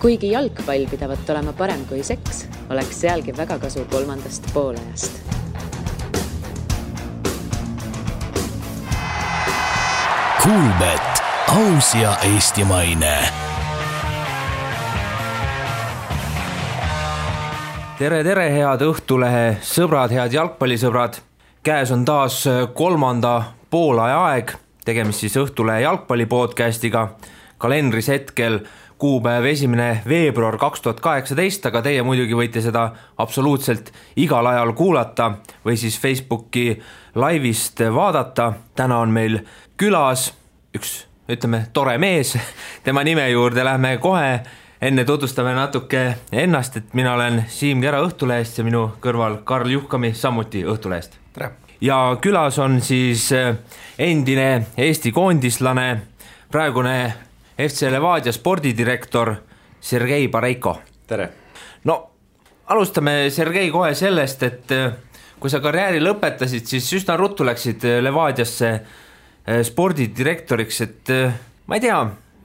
Kuigi jalgpall pidavat olema parem kui seks, oleks sealgi väga kasu 3. poolajast. Kuulbet, aus ja eestimaine. Tere, head Õhtulehe sõbrad, head jalgpallisõbrad. Käes on taas 3. poolaja aeg, tegemist siis Õhtulehe jalgpallipodcastiga. Kalendris hetkel kuupäev 1. veebruar 2018, aga teie muidugi võite seda absoluutselt igal ajal kuulata või siis Facebooki laivist vaadata. Täna on meil külas üks, tore mees, tema nime juurde lähme kohe. Enne tutvustame natuke ennast, et mina olen Siim Kera Õhtulehest ja minu kõrval Karl Juhkami samuti Õhtulehest. Tere. Ja külas on siis endine Eesti koondislane, praegune FC Levadia spordidirektor Sergei Bareiko. Tere. No, alustame Sergei kohe sellest, et kui sa karjääri lõpetasid, siis üsna ruttu läksid Levadiasse spordidirektoriks, et ma ei tea,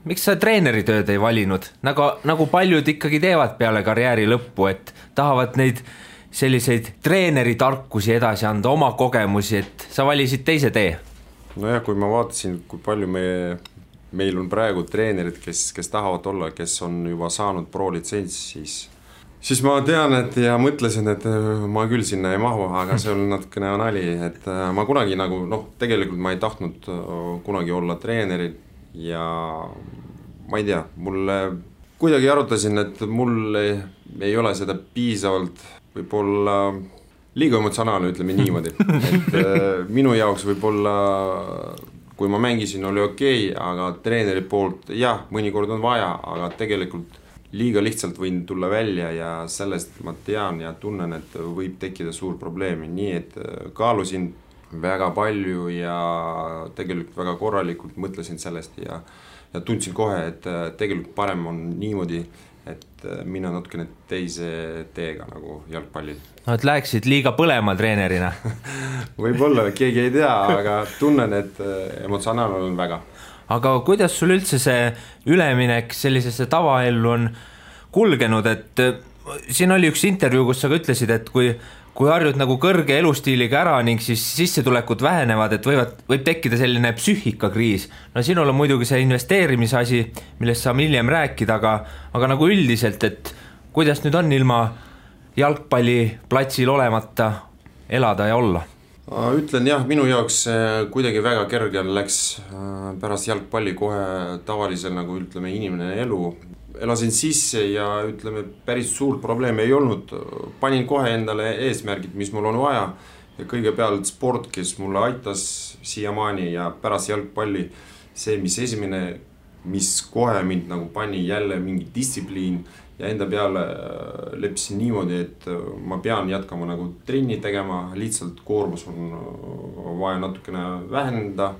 miks sa treeneritööd ei valinud? Nagu paljud ikkagi teevad peale karjääri lõppu, et tahavad neid selliseid treeneritarkusi edasi anda, oma kogemusi, et sa valisid teise tee. Nojah, kui ma vaatasin, kui palju meil on praegu treenerid, kes tahavad olla, kes on juba saanud pro-litsents, siis ma tean, et ja mõtlesin, et ma küll sinna ei mahu, aga see on natukene nali, et ma kunagi tegelikult ma ei tahtnud kunagi olla treenerid ja ma ei tea, mulle kuidagi arutasin, et mul ei ole seda piisavalt võib-olla liiga emotsionaalne, ütleme niimoodi, et minu jaoks võib-olla kui ma mängisin, oli okei, aga treeneri poolt, jah, mõnikord on vaja, aga tegelikult liiga lihtsalt võin tulla välja ja sellest ma tean ja tunnen, et võib tekkida suur probleemi, nii et kaalusin väga palju ja tegelikult väga korralikult mõtlesin sellest ja tundsin kohe, et tegelikult parem on niimoodi, et mina natukene teise teega nagu jalgpallil. No, et läheksid liiga põlema treenerina? Võib-olla, keegi ei tea, aga tunnen, et emotsionaalne on väga. Aga kuidas sul üldse see üleminek sellisesse tavaellu on kulgenud, et siin oli üks intervjuu, kus sa ütlesid, et kui harjud nagu kõrge elustiiliga ära ning siis sissetulekud vähenevad, et võib tekkida selline psüühikakriis. No sinul on muidugi see investeerimisasi, millest saame hiljem rääkida, aga nagu üldiselt, et kuidas nüüd on ilma jalgpalliplatsil olemata elada ja olla? Ütlen jah, minu jaoks kuidagi väga kerge läks pärast jalgpalli kohe tavalisel nagu ütleme inimene elu. Elasin sisse ja ütleme päris suurt probleemi ei olnud. Panin kohe endale eesmärgid, mis mul on vaja ja kõigepealt sport, kes mulle aitas siiamaani ja pärast jalgpalli see, mis esimene, mis kohe mind nagu pani jälle mingi distsipliin ja enda peale lepsin niimoodi, et ma pean jätkama nagu trenni tegema, lihtsalt koormus on vaja natukene vähendada.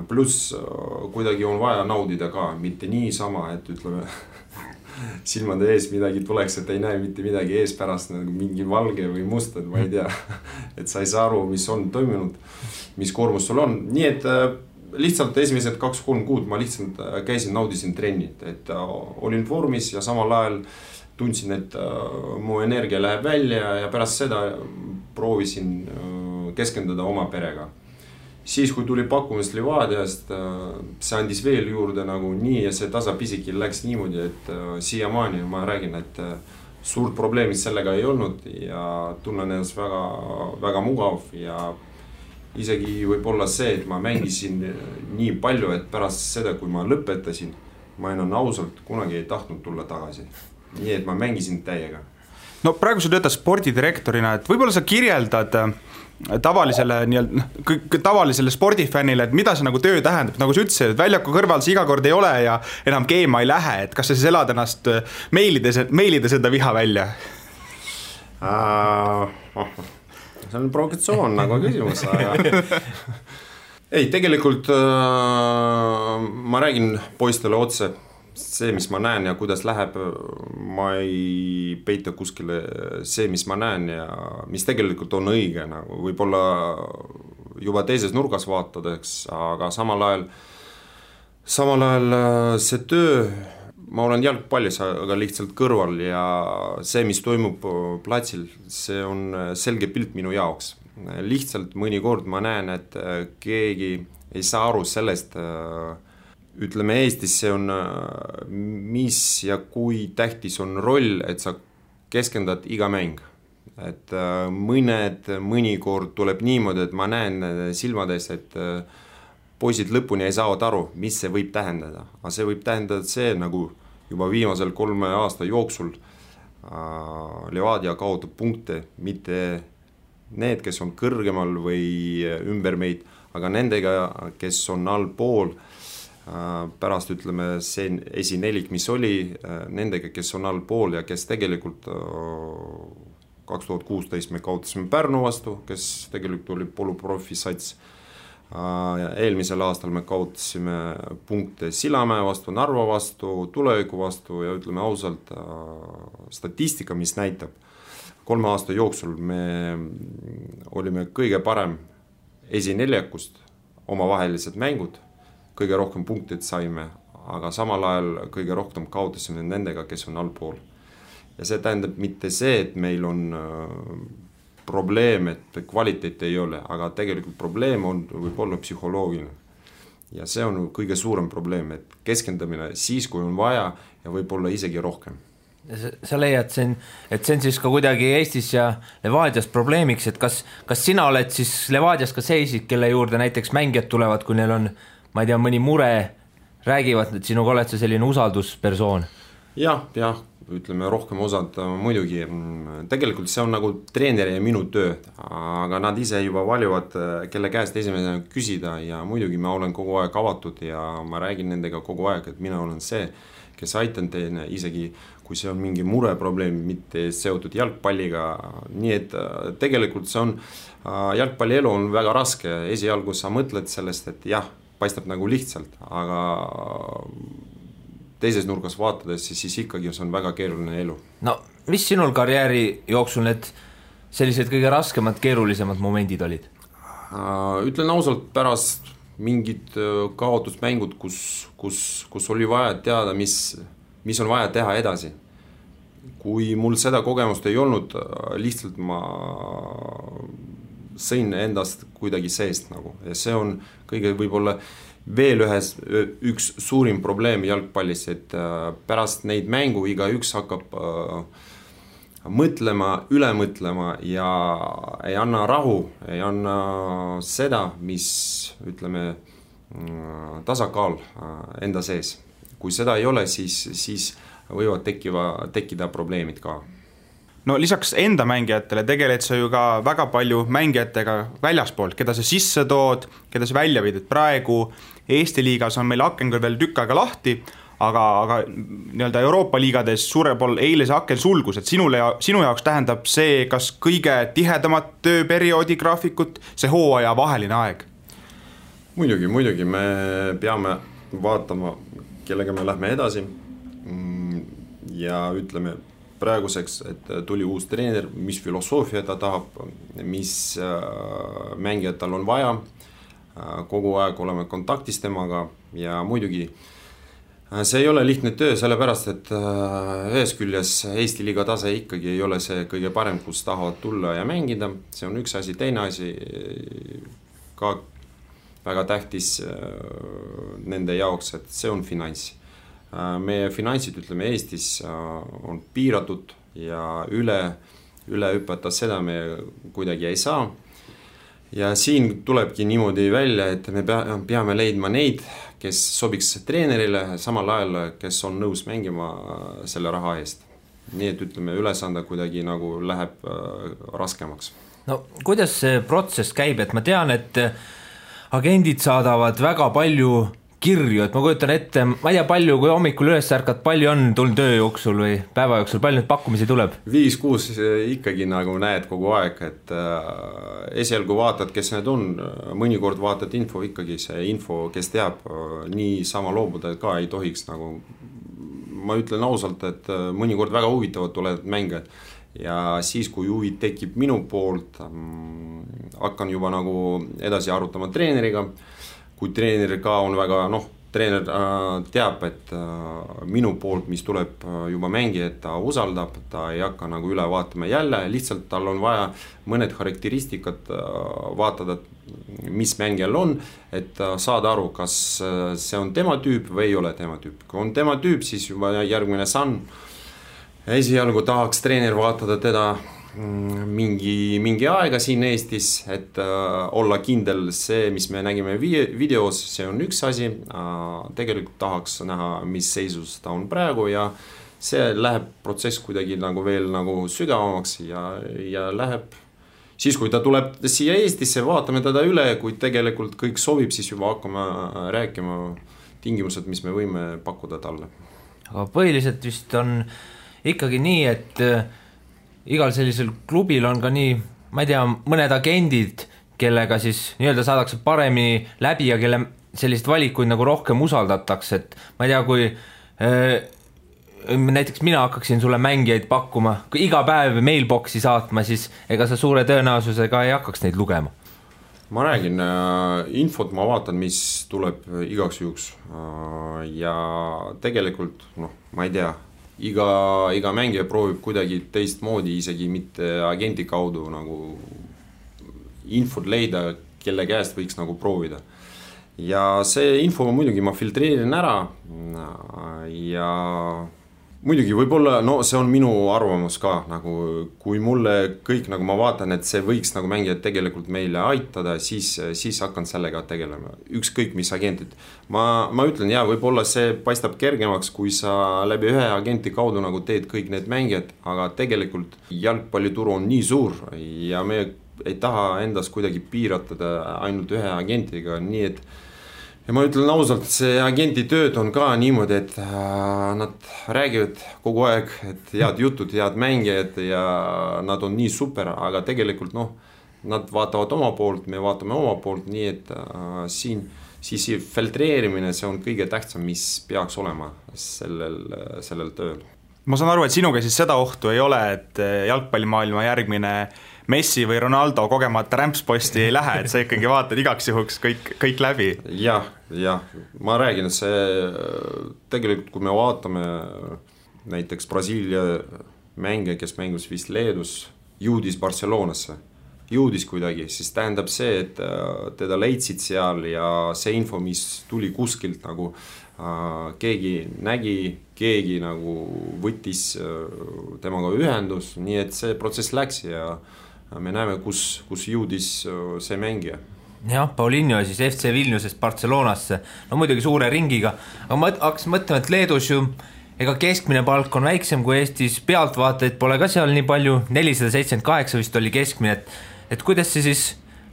Pluss kuidagi on vaja naudida ka, mitte niisama, et ütleme silmade ees midagi tuleks, et ei näe mitte midagi ees pärast nagu mingi valge või must, et ma ei tea, et sa ei saa aru, mis on toimunud, mis koormus sul on. Nii et lihtsalt esimesed 2-3 kuud ma lihtsalt käisin, naudisin trennit, et olin vormis ja samal ajal tundsin, et mu energia läheb välja ja pärast seda proovisin keskenduda oma perega. Siis kui tuli pakkumist Levadiast, see andis veel juurde nagu nii ja see tasapisi läks niimoodi, et siiamaani ma räägin, et suurt probleemid sellega ei olnud ja tunnen ennast väga, väga mugav ja isegi võib-olla see, et ma mängisin nii palju, et pärast seda, kui ma lõpetasin, ma enam ausalt kunagi ei tahtnud tulla tagasi. Nii et ma mängisin täiega. No praegu sa töötad spordidirektorina, et võib-olla sa kirjeldad tavalisele spordifännile, et mida see nagu töö tähendab, nagu sa ütlesid, et väljaku kõrval see iga kord ei ole ja enam keema ei lähe, et kas sa siis elad ennast meilides enda viha välja? See on provokatsioon nagu küsimus, aga ei, tegelikult ma räägin poistele otse see, mis ma näen ja kuidas läheb, ma ei peita kuskile see, mis ma näen ja mis tegelikult on õige, nagu võib-olla juba teises nurgas vaatadeks, aga samal ajal see töö ma olen jalgpallis, aga lihtsalt kõrval ja see, mis toimub platsil, see on selge pilt minu jaoks. Lihtsalt mõnikord ma näen, et keegi ei saa aru sellest, ütleme Eestis see on, mis ja kui tähtis on roll, et sa keskendad iga mäng. Et mõnikord tuleb niimoodi, et ma näen silmades, et poisid lõpuni ei saavad aru, mis see võib tähendada. Aga see võib tähendada see, nagu juba viimasel 3 aasta jooksul Levadia kaotab punkte, mitte need, kes on kõrgemal või ümber meid, aga nendega, kes on allpool, pärast ütleme see esinelik, mis oli, nendega, kes on allpool ja kes tegelikult 2016 me kaotasime Pärnu vastu, kes tegelikult oli poluprofi sats. Eelmisel aastal me kaotasime punkte Sillamäe vastu, Narva vastu, Tuleviku vastu ja ütleme ausalt, statistika, mis näitab, 3 aasta jooksul me olime kõige parem esineljakust, omavahelised mängud, kõige rohkem punktid saime, aga samal ajal kõige rohkem kaotasime nendega, kes on allpool. Ja see tähendab mitte see, et meil on probleem, et kvaliteet ei ole, aga tegelikult probleem on võib-olla psühholoogiline. Ja see on kõige suurem probleem, et keskendamine siis, kui on vaja ja võib-olla isegi rohkem. Sa leiad, et see on siis ka kuidagi Eestis ja Levadias probleemiks, et kas sina oled siis Levadias ka see isik, kelle juurde näiteks mängijad tulevad, kui neil on, ma ei tea, mõni mure, räägivad, et sinuga oled sa selline usalduspersoon? Jah, ütleme rohkem osad muidugi. Tegelikult see on nagu treeneri ja minu töö, aga nad ise juba valivad, kelle käest esimesena küsida ja muidugi ma olen kogu aeg avatud ja ma räägin nendega kogu aeg, et mina olen see, kes aitan teine, isegi kui see on mingi mureprobleem, mitte seotud jalgpalliga. Nii et tegelikult see on, jalgpallielu on väga raske. Esialgu sa mõtled sellest, et jah, paistab nagu lihtsalt, aga teises nurgas vaatades, siis ikkagi see on väga keeruline elu. No, mis sinul karjääri jooksul need sellised kõige raskemad, keerulisemad momendid olid? Ütlen ausalt, pärast mingid kaotusmängud, kus oli vaja teada, mis on vaja teha edasi. Kui mul seda kogemust ei olnud, lihtsalt ma sõin endast kuidagi seest nagu. Ja see on kõige võib-olla veel üks suurim probleem jalgpallis, et pärast neid mängu igaüks hakkab mõtlema, üle mõtlema ja ei anna rahu, ei anna seda, mis ütleme tasakaal enda sees. Kui seda ei ole, siis võivad tekkida probleemid ka. No lisaks enda mängijatele tegeled sa ju ka väga palju mängijatega väljaspoolt, keda sa sisse tood, keda sa välja viid, et praegu Eesti liigas on meil aken küll veel tükk aega lahti, aga nii-öelda Euroopa liigades suurel pool eile see aken sulgus, et sinu jaoks tähendab see kas kõige tihedamat tööperioodi graafikut, see hooaja vaheline aeg? Muidugi, me peame vaatama, kellega me lähme edasi ja ütleme praeguseks, et tuli uus treener, mis filosoofia ta tahab, mis mängijad tal on vaja, kogu aeg oleme kontaktis temaga ja muidugi see ei ole lihtne töö, sellepärast, et ühes küljes Eesti liiga tase ikkagi ei ole see kõige parem, kus tahavad tulla ja mängida, see on üks asi, teine asi ka väga tähtis nende jaoks, et see on finants. Meie finantsid, ütleme, Eestis on piiratud ja üle hüpata seda me kuidagi ei saa. Ja siin tulebki niimoodi välja, et me peame leidma neid, kes sobiks treenerile samal ajal, kes on nõus mängima selle raha eest. Nii et ütleme, ülesande kuidagi nagu läheb raskemaks. No kuidas see protsess käib, et ma tean, et agendid saadavad väga palju kirju, et ma kujutan ette, ma ei tea palju, kui hommikul üles ärkad, palju on tulnud töö jooksul või päeva jooksul, palju nüüd pakkumisi tuleb? 5-6 ikkagi nagu näed kogu aeg, et esialgu vaatad, kes need on, mõnikord vaatad info, ikkagi see info, kes teab, nii sama loobuda ka ei tohiks nagu, ma ütlen ausalt, et mõnikord väga huvitavad tulevad mängijad ja siis, kui huvi tekib minu poolt, hakkan juba nagu edasi arutama treeneriga. Kui treener ka on väga treener teab, et minu poolt, mis tuleb juba mängijad, ta usaldab, ta ei hakka nagu üle vaatama jälle, lihtsalt tal on vaja mõned karakteristikad vaatada, mis mängijal on, et saada aru, kas see on tema tüüp või ei ole tema tüüp. Kui on tema tüüp, siis juba järgmine samm. Esialgu tahaks treener vaatada teda mingi aega siin Eestis, et olla kindel see, mis me nägime videos, see on üks asi, tegelikult tahaks näha, mis seisus ta on praegu ja see läheb protsess kuidagi nagu veel nagu sügavamaks ja läheb siis, kui ta tuleb siia Eestisse, vaatame teda üle, kui tegelikult kõik sobib, siis juba hakkame rääkima tingimused, mis me võime pakkuda talle. Aga põhiliselt vist on ikkagi nii, et igal sellisel klubil on ka nii, ma ei tea, mõned agendid, kellega siis nii-öelda saadakse paremini läbi ja kelle sellised valikuid nagu rohkem usaldatakse, et ma ei tea, kui näiteks mina hakkaksin sulle mängijaid pakkuma, kui iga päev mailboxi saatma, siis ega sa suure tõenäosusega ei hakkaks neid lugema. Ma räägin, infot ma vaatan, mis tuleb igaks juhuks ja tegelikult, ma ei tea, iga mängija proovib kuidagi teistmoodi, isegi mitte agenti kaudu nagu infot leida, kelle käest võiks nagu proovida. Ja see info muidugi ma filtreerin ära ja muidugi võib-olla, see on minu arvamus ka, nagu kui mulle kõik, nagu ma vaatan, et see võiks nagu mängijad tegelikult meile aitada, siis hakkan sellega tegelema. Ükskõik mis agentid. Ma ütlen, võib-olla see paistab kergemaks, kui sa läbi ühe agenti kaudu nagu teed kõik need mängijad, aga tegelikult jalgpallituru on nii suur ja me ei taha endas kuidagi piiratada ainult ühe agentiga, nii et ja ma ütlen ausalt, see agenti tööd on ka niimoodi, et nad räägivad kogu aeg, et head jutud, head mängijad ja nad on nii super, aga tegelikult nad vaatavad oma poolt, me vaatame oma poolt, nii et siis filtreerimine, see on kõige tähtsam, mis peaks olema sellel tööl. Ma saan aru, et sinuga siis seda ohtu ei ole, et jalgpallimaailma järgmine Messi või Ronaldo kogemata rämpsposti ei lähe, et sa ikkagi vaatad igaks juhuks kõik läbi. Jah, ma räägin, et see tegelikult, kui me vaatame näiteks Brasiilia mängija, kes mängus vist Leedus, jõudis Barcelonasse, jõudis kuidagi, siis tähendab see, et teda leidsid seal ja see info, mis tuli kuskilt nagu keegi nägi, keegi nagu võttis temaga ühendus, nii et see protsess läks ja me näeme, kus jõudis see mängija. Jah, Paulinho siis FC Vilniusest Barcelonasse, muidugi suure ringiga, aga ma hakkasin mõtlema, et Leedus ju ega keskmine palk on väiksem kui Eestis, pealtvaatajaid pole ka seal nii palju, 478 vist oli keskmine, et kuidas see siis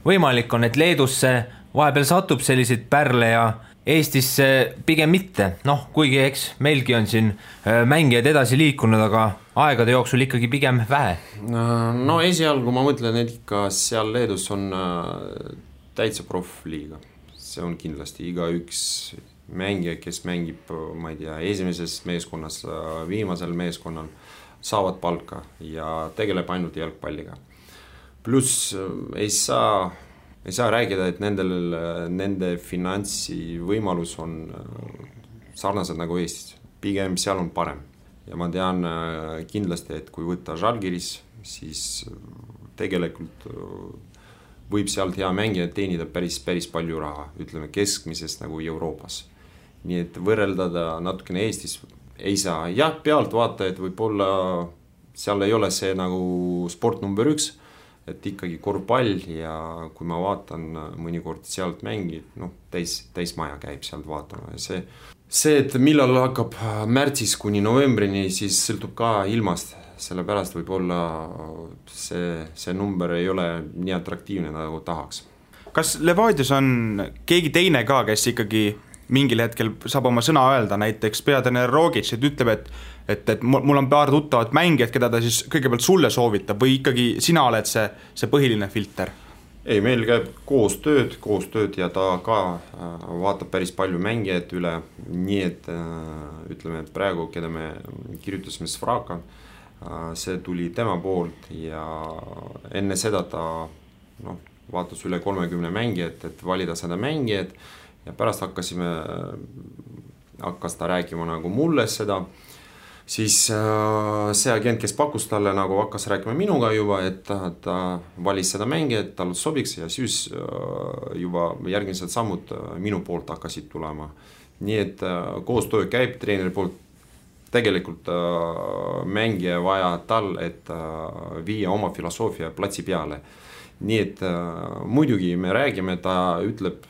võimalik on, et Leedusse vahepeal satub selliseid pärle ja Eestisse pigem mitte, kuigi eks meilgi on siin mängijad edasi liikunud, aga aegade jooksul ikkagi pigem vähe. Esialgu ma mõtlen, et ikka seal Leedus on täitsa profliiga. See on kindlasti iga üks mängija, kes mängib, ma ei tea, esimeses meeskonnas, viimasel meeskonnal, saavad palka ja tegeleb ainult jalgpalliga. Pluss ei saa rääkida, et nende finantsi võimalus on sarnased nagu Eestis. Pigem seal on parem. Ja ma tean kindlasti, et kui võtta Žalgiris, siis tegelikult võib sealt hea mängija teenida päris palju raha, ütleme keskmisest nagu Euroopas. Nii et võrreldada natukene Eestis ei saa. Jah, pealt vaata, et võib-olla seal ei ole see nagu sport number 1, et ikkagi korvpall ja kui ma vaatan mõnikord sealt mängid, täis maja käib sealt vaatama. See, et millal hakkab märtsis kuni novembrini, siis sõltub ka ilmast, sellepärast võib-olla see number ei ole nii atraktiivne nagu tahaks. Kas Levadios on keegi teine ka, kes ikkagi mingil hetkel saab oma sõna öelda, näiteks peatreener Rogic, et ütleb, et mul on paar tuttavat mängijat, keda ta siis kõigepealt sulle soovitab või ikkagi sina oled see põhiline filter? Ei, meil käib koostööd ja ta ka vaatab päris palju mängijat üle, nii et ütleme, et praegu, keda me kirjutasime Svraka, see tuli tema poolt ja enne seda ta vaatas üle 30 mängijat, et valida seda mängijat ja pärast hakkas ta rääkima nagu mulle seda, siis see agent, kes pakkus talle, nagu hakkas rääkima minuga juba, et ta valis seda mängi, et tal sobiks ja siis juba järgmised sammud minu poolt hakkasid tulema. Nii et koostöö käib treeneri poolt, tegelikult mängija vaja tal, et viia oma filosoofia platsi peale. Nii et muidugi me räägime, ta ütleb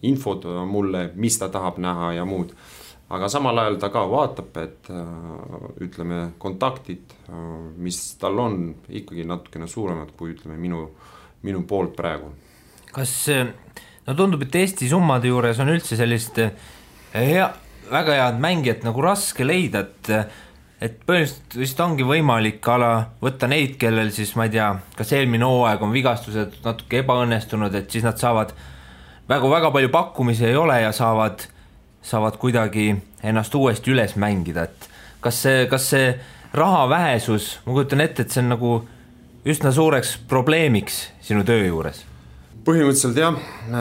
infot mulle, mis ta tahab näha ja muud. Aga samal ajal ta ka vaatab, et ütleme kontaktid, mis tal on ikkagi natukene suuremad kui ütleme minu poolt praegu. Kas tundub, et Eesti summade juures on üldse sellist väga head mängijat nagu raske leida, et põhimõtteliselt ongi võimalik võtta neid, kellel siis ma ei tea, kas eelmine hooaeg on vigastused natuke ebaõnnestunud, et siis nad saavad väga palju pakkumisi ei ole ja saavad kuidagi ennast uuesti üles mängida, et kas see raha vähesus, ma kujutan ette, et see on nagu üsna suureks probleemiks sinu töö juures? Põhimõtteliselt jah,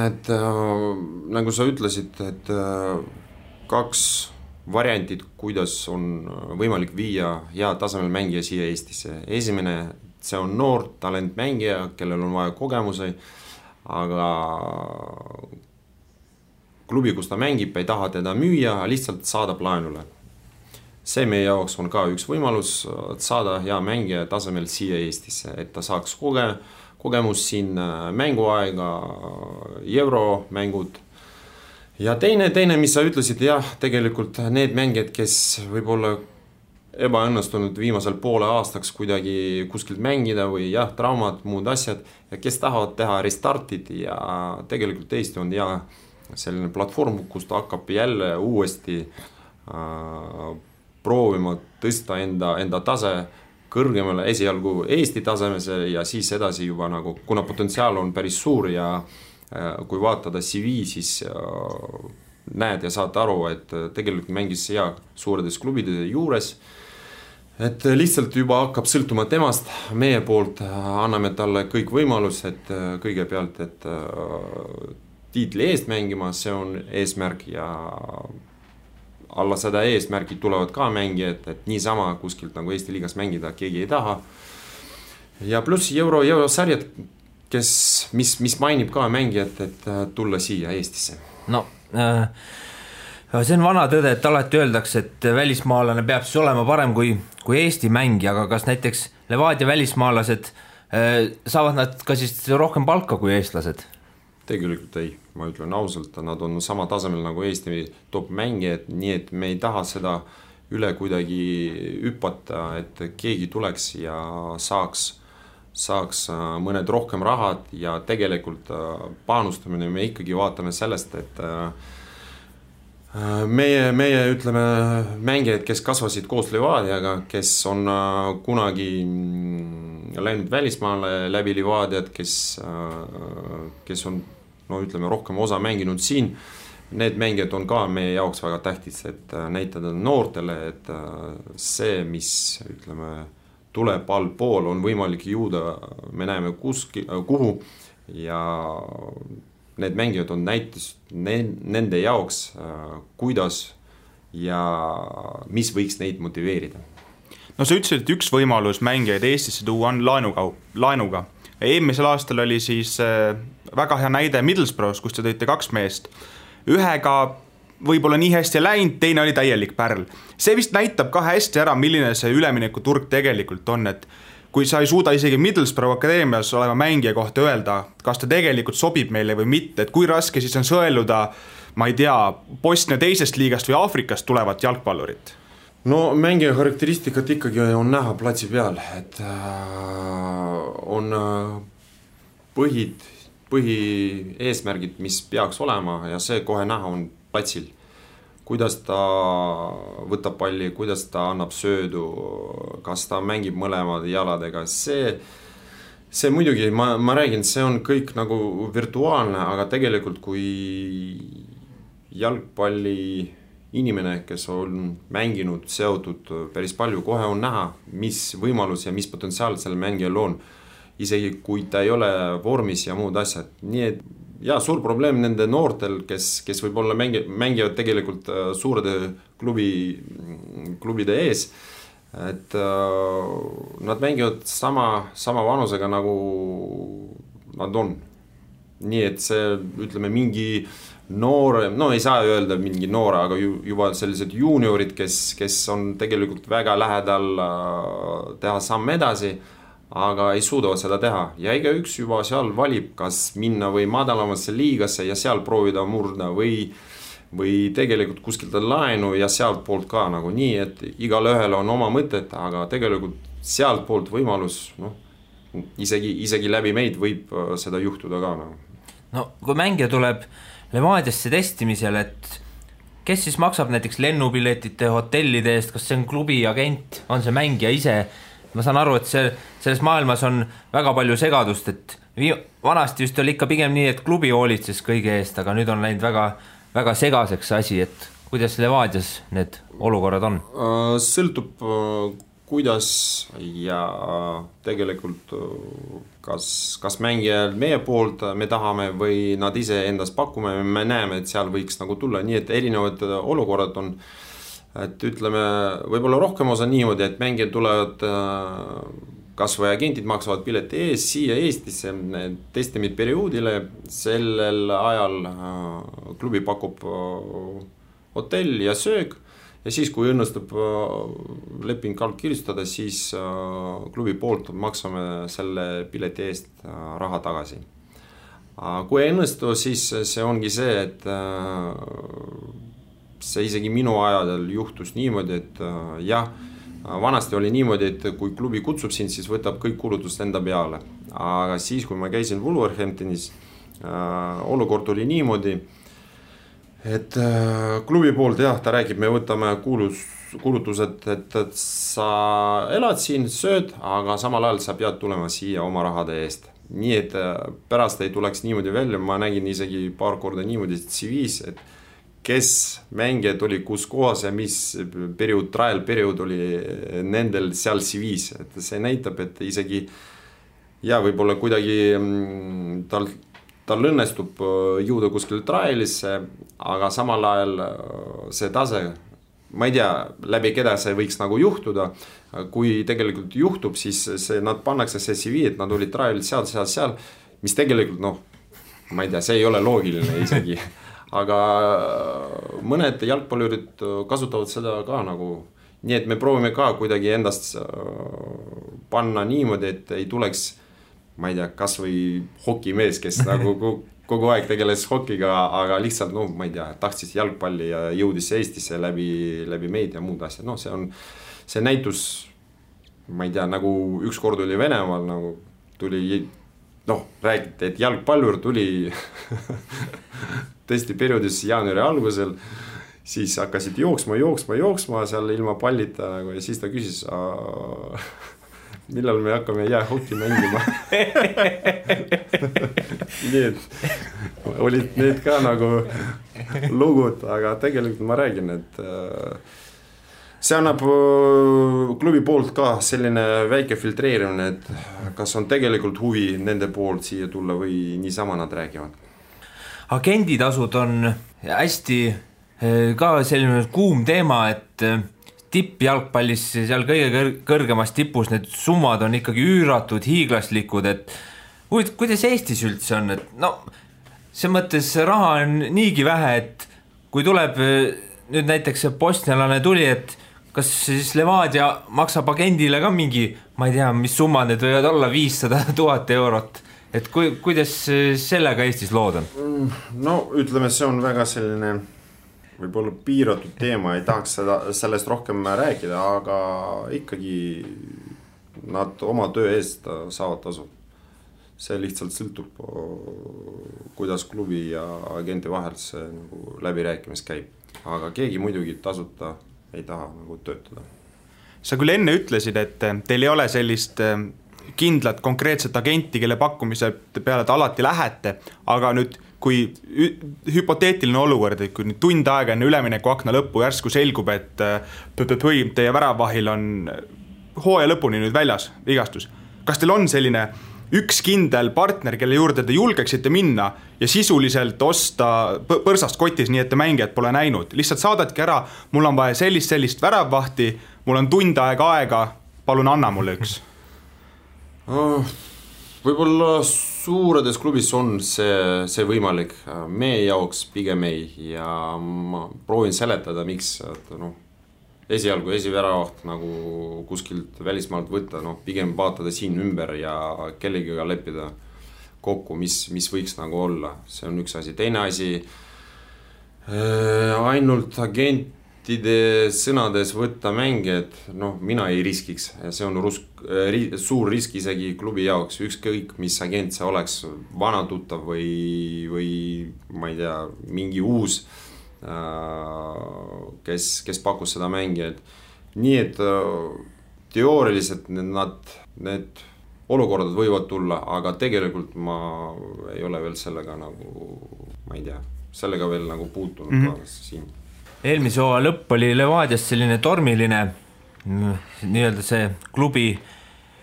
et nagu sa ütlesid, et 2 variantit, kuidas on võimalik viia hea tasemel mängija siia Eestisse. Esimene, see on noor talentmängija, kellel on vaja kogemusi, aga klubi, kus ta mängib, ei taha teda müüa, lihtsalt saadab laenule. See meie jaoks on ka üks võimalus saada hea mängija tasemel siia Eestisse, et ta saaks kogemus siin mänguaega, euromängud. Ja teine, mis sa ütlesid, jah, tegelikult need mängijad, kes võib-olla ebaõnnestunud viimasel poole aastaks kuidagi kuskilt mängida või jah, traumad, muud asjad, ja kes tahavad teha restartid ja tegelikult Eesti on hea selline platvorm, kus ta hakkab jälle uuesti proovima tõsta enda tase kõrgemale esialgu Eesti tasemese ja siis edasi juba nagu, kuna potentsiaal on päris suur ja kui vaatada CV, siis näed ja saad aru, et tegelikult mängis hea suuredes klubide juures, et lihtsalt juba hakkab sõltuma temast, meie poolt anname talle kõik võimalus, et kõigepealt, et tiitli eest mängima, see on eesmärk ja alla seda eesmärgid tulevad ka mängijad, et niisama kuskilt nagu Eesti liigas mängida keegi ei taha. Ja pluss eurosarjad, mis mainib ka mängijat, et tulla siia Eestisse. No, see on vana tõde, et alati öeldakse, et välismaalane peab siis olema parem kui Eesti mängija, aga kas näiteks Levadia välismaalased saavad nad ka siis rohkem palka kui eestlased? Tegelikult ei, ma ütlen ausalt, nad on sama tasemel nagu Eesti top mängijad, nii et me ei taha seda üle kuidagi hüpata, et keegi tuleks ja saaks mõned rohkem rahad ja tegelikult panustamine me ikkagi vaatame sellest, et meie ütleme mängijad, kes kasvasid koos Levadiaga, kes on kunagi läinud välismaale läbi Levadiat, kes on ütleme rohkem osa mänginud siin, need mängijad on ka meie jaoks väga tähtis, et näitada noortele, et see, mis ütleme tuleb allpool, on võimalik jõuda, me näeme kuhu ja need mängijad on näitus nende jaoks, kuidas ja mis võiks neid motiveerida. No sa ütlesid, et üks võimalus mängijaid Eestisse tuua on laenuga. Eelmisel aastal oli siis väga hea näide Middlesbroughs, kus te tõite 2 meest. Ühega võib-olla nii hästi läinud, teine oli täielik pärl. See vist näitab ka hästi ära, milline see ülemineku turg tegelikult on, et kui sa ei suuda isegi Middlesbrough akadeemias olema mängija kohta öelda, kas ta tegelikult sobib meile või mitte, et kui raske siis on sõeluda, ma ei tea, Bosnia teisest liigast või Aafrikast tulevat jalgpallurit? No mängija karakteristikat ikkagi on näha platsi peal, et on põhieesmärgid, mis peaks olema ja see kohe näha on platsil, kuidas ta võtab palli, kuidas ta annab söödu, kas ta mängib mõlemad jaladega, see muidugi, ma räägin, see on kõik nagu virtuaalne, aga tegelikult kui jalgpalli inimene, kes on mänginud, seotud päris palju, kohe on näha, mis võimalus ja mis potentsiaal selle mängijal on, isegi kui ta ei ole vormis ja muud asjad, nii et suur probleem nende noortel, kes võib-olla mängivad tegelikult suurede klubide ees, et nad mängivad sama vanusega nagu nad on. Nii et see, ütleme, mingi noore, no ei saa öelda mingi noore, aga juba sellised juniorid, kes on tegelikult väga lähedal teha samm edasi, aga ei suuda seda teha. Ja iga üks juba seal valib, kas minna või madalamasse liigasse ja seal proovida murda või tegelikult kuskilt laenu ja sealt poolt ka nagu nii, et igal ühel on oma mõtet, aga tegelikult sealt poolt võimalus, isegi läbi meid võib seda juhtuda ka nagu. No kui mängija tuleb Levadiasse testimisel, et kes siis maksab näiteks lennupiletite, hotellide eest, kas see on klubi agent, on see mängija ise? Ma saan aru, et selles maailmas on väga palju segadust, et vanasti just oli ikka pigem nii, et klubi hoolitses kõige eest, aga nüüd on läinud väga, väga segaseks asi, et kuidas Levadias need olukorrad on? Sõltub kuidas ja tegelikult kas mängijal meie poolt me tahame või nad ise endast pakume, me näeme, et seal võiks nagu tulla, nii et erinevad olukorrad on, et ütleme, võib-olla rohkem osa niimoodi, et mängijad tulevad kas või agentid maksavad pileti ees siia Eestisse testimid perioodile, sellel ajal klubi pakub hotell ja söög ja siis kui õnnestub leping kirjutada, siis klubi poolt maksame selle pileti eest raha tagasi. Kui ei õnnestu, siis see ongi see, et see isegi minu ajadel juhtus niimoodi, et vanasti oli niimoodi, et kui klubi kutsub sind, siis võtab kõik kulutust enda peale. Aga siis, kui ma käisin Wolverhamptonis, olukord oli niimoodi, et klubi poolt ta räägib, me võtame kulutused, et sa elad siin, sööd, aga samal ajal sa pead tulema siia oma rahade eest. Nii et pärast ei tuleks niimoodi välja, ma nägin isegi paar korda niimoodi CV-s, et kes mängijad oli kus kohas ja mis trial periood oli nendel seal CV-s, et see näitab, et isegi võib-olla kuidagi tal õnnestub jõuda kuskil trialisse, aga samal ajal see tase, ma ei tea, läbi keda see võiks nagu juhtuda, kui tegelikult juhtub, siis nad pannakse see CV, et nad olid trialid seal, mis tegelikult, ma ei tea, see ei ole loogiline isegi. Aga mõned jalgpallurid kasutavad seda ka nagu, nii et me proovime ka kuidagi endast panna niimoodi, et ei tuleks, ma ei tea, kas või hokimees, kes nagu kogu aeg tegeles hokiga, aga lihtsalt, ma ei tea, tahtsis jalgpalli ja jõudis Eestisse läbi meid ja muud asjad. See näitus, ma ei tea, nagu üks kord oli Venemaal, nagu tuli, räägiti, et jalgpallur tuli testi perioodis jaanuari algusel, siis hakkasid jooksma seal ilma pallita nagu, ja siis ta küsis, millal me hakkame jäähoki mängima. Nii et olid need ka nagu lugud, aga tegelikult ma räägin, et see annab klubi poolt ka selline väike filtreerimine, et kas on tegelikult huvi nende poolt siia tulla või niisama nad räägivad. Agenditasud on hästi ka selline kuum teema, et tippjalgpallis seal kõige kõrgemas tipus need summad on ikkagi üüratud, hiiglaslikud, et kuidas Eestis üldse on, et see mõttes raha on niigi vähe, et kui tuleb nüüd näiteks bosnialane tuli, et kas siis Levadia maksab agendile ka mingi, ma ei tea, mis summa need võivad olla, 500 000 eurot, et kuidas sellega Eestis lood on? Ütleme, see on väga selline võib-olla piiratud teema, ei tahaks sellest rohkem rääkida, aga ikkagi nad oma töö eest saavad tasu. See lihtsalt sõltub, kuidas klubi ja agenti vahel see nagu läbirääkimis käib. Aga keegi muidugi tasuta ei taha nagu töötada. Sa küll enne ütlesid, et teil ei ole sellist kindlat konkreetset agenti, kelle pakkumise peale te alati lähete, aga nüüd kui hüpoteetiline olukord, et kui nüüd tund aega enne ülemineku akna lõppu järsku selgub, et teie väravahil on hooaja lõpuni nüüd väljas vigastus. Kas teil on selline üks kindel partner, kelle juurde te julgeksite minna ja sisuliselt osta põrsast kotis, nii et te mängijad pole näinud. Lihtsalt saadadki ära, mul on vaja sellist väravvahti, mul on tund aega, palun anna mulle üks. Võib-olla suuredes klubis on see võimalik. Meie jaoks pigem ei ja ma proovin seletada, miks esialgu esiväravaht nagu kuskilt välismaalt võtta, pigem vaatada siin ümber ja kellegiga leppida kokku, mis võiks nagu olla. See on üks asi. Teine asi, ainult agentide sõnades võtta mängijad, mina ei riskiks. See on suur risk isegi klubi jaoks, ükskõik mis agent see oleks, vana tuttav või ma ei tea, mingi uus, kes pakkus seda mängijad. Nii et teooriliselt need olukorrad võivad tulla, aga tegelikult ma ei ole veel sellega nagu, ma ei tea, sellega veel nagu puutunud siin. Eelmise hooaja lõpp oli Levadias selline tormiline nii-öelda see klubi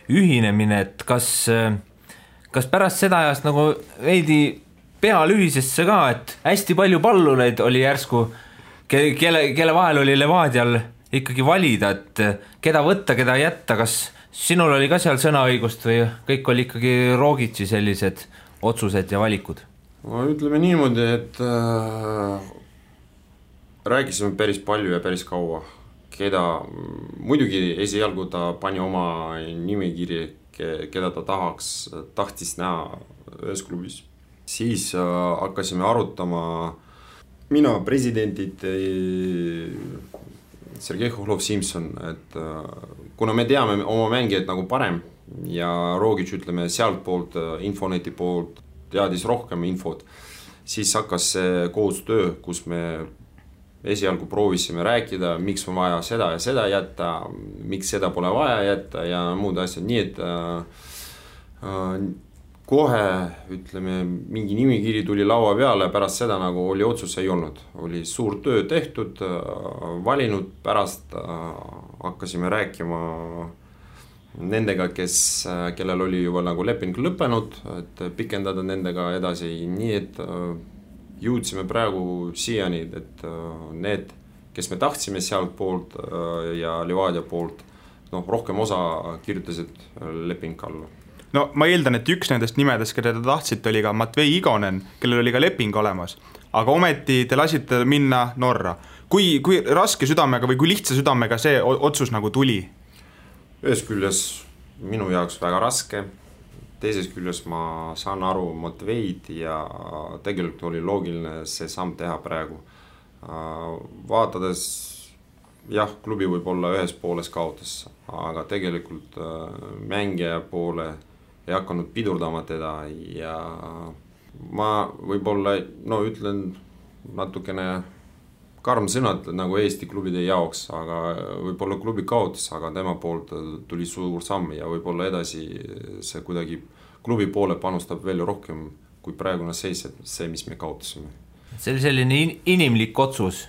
ühinemine, et kas pärast seda ajast nagu veidi pealühisesse ka, et hästi palju pallureid oli järsku, kelle vahel oli Levadial ikkagi valida, et keda võtta, keda jätta, kas sinul oli ka seal sõnaõigust või kõik oli ikkagi Rogitsi sellised otsused ja valikud? Ma ütleme niimoodi, et rääkisime päris palju ja päris kaua, muidugi esialgu ta pani oma nimekiri, keda ta tahtis näha ühes klubis. Siis hakkasime arutama mina, presidendid, Sergei Khovlov-Simson, et kuna me teame oma mängijad nagu parem ja Rogic, ütleme, sealt poolt, Infoneti poolt teadis rohkem infot, siis hakkas see koostöö, kus me esialgu proovisime rääkida, miks on vaja seda ja seda jätta, miks seda pole vaja jätta ja muud asjad, nii et kohe, ütleme, mingi nimikiri tuli laua peale, pärast seda nagu oli otsus ei olnud. Oli suur töö tehtud, valinud, pärast hakkasime rääkima nendega, kellel oli juba nagu leping lõppenud, et pikendada nendega edasi, nii et jõudsime praegu siiani, et need, kes me tahtsime sealt poolt ja Levadia poolt, rohkem osa kirjutasid leping alla. No ma eeldan, et üks nendest nimedest, keda te tahtsite, oli ka Matvei Igonen, kellel oli ka leping olemas, aga ometi te lasite minna Norra. Kui raske südamega või kui lihtsa südamega see otsus nagu tuli? Ühes küljes minu jaoks väga raske, teises küljes ma saan aru Matveid ja tegelikult oli loogiline see samm teha praegu. Vaatades, jah, klubi võib olla ühes pooles kaotas, aga tegelikult mängija poole ei hakanud pidurdama teda ja ma võib-olla, ütlen natukene karm sõnad nagu Eesti klubide jaoks, aga võib-olla klubi kaotas, aga tema poolt tuli suur samm ja võib-olla edasi see kuidagi klubi poole panustab veel rohkem kui praegune seis, see, mis me kaotasime. See oli selline inimlik otsus?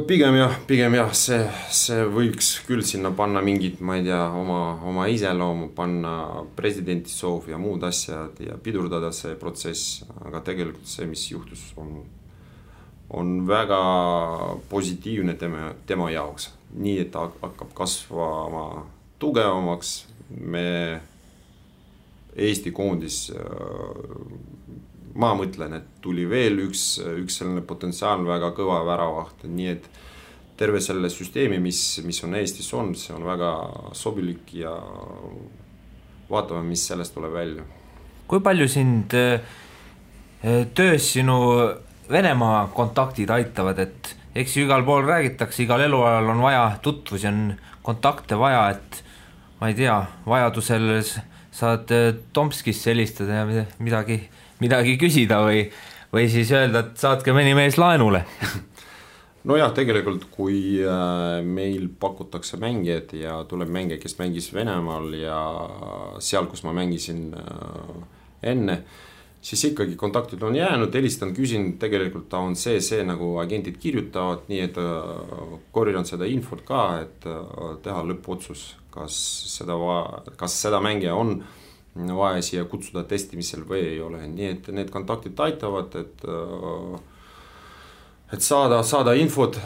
Pigem jah, see võiks küll sinna panna mingid, ma ei tea, oma iseloomu, panna presidenti soov ja muud asjad ja pidurdada see protsess, aga tegelikult see, mis juhtus, on väga positiivne tema jaoks. Nii, et hakkab kasvama tugevamaks, me Eesti koondis ma mõtlen, et tuli veel üks selline potentsiaalne väga kõva väravaht, nii et terve selle süsteemi, mis on Eestis on, see on väga sobilik ja vaatame, mis sellest tuleb välja. Kui palju sind töös sinu Venemaa kontaktid aitavad, et eks ju igal pool räägitakse, igal eluajal on vaja tutvusi, on kontakte vaja, et ma ei tea, vajadusel saad Tomskisse helistada ja midagi küsida või siis öelda, et saatke mõni mees laenule. No jah, tegelikult kui meil pakutakse mängijad ja tuleb mängija, kes mängis Venemaal ja seal, kus ma mängisin enne, siis ikkagi kontaktid on jäänud, helistan, küsin, tegelikult ta on see nagu agentid kirjutavad, nii et korjan seda infot ka, et teha lõppotsus, kas seda mängija on vaja siia kutsuda testimisel või ei ole, nii et need kontaktid aitavad, et saada infot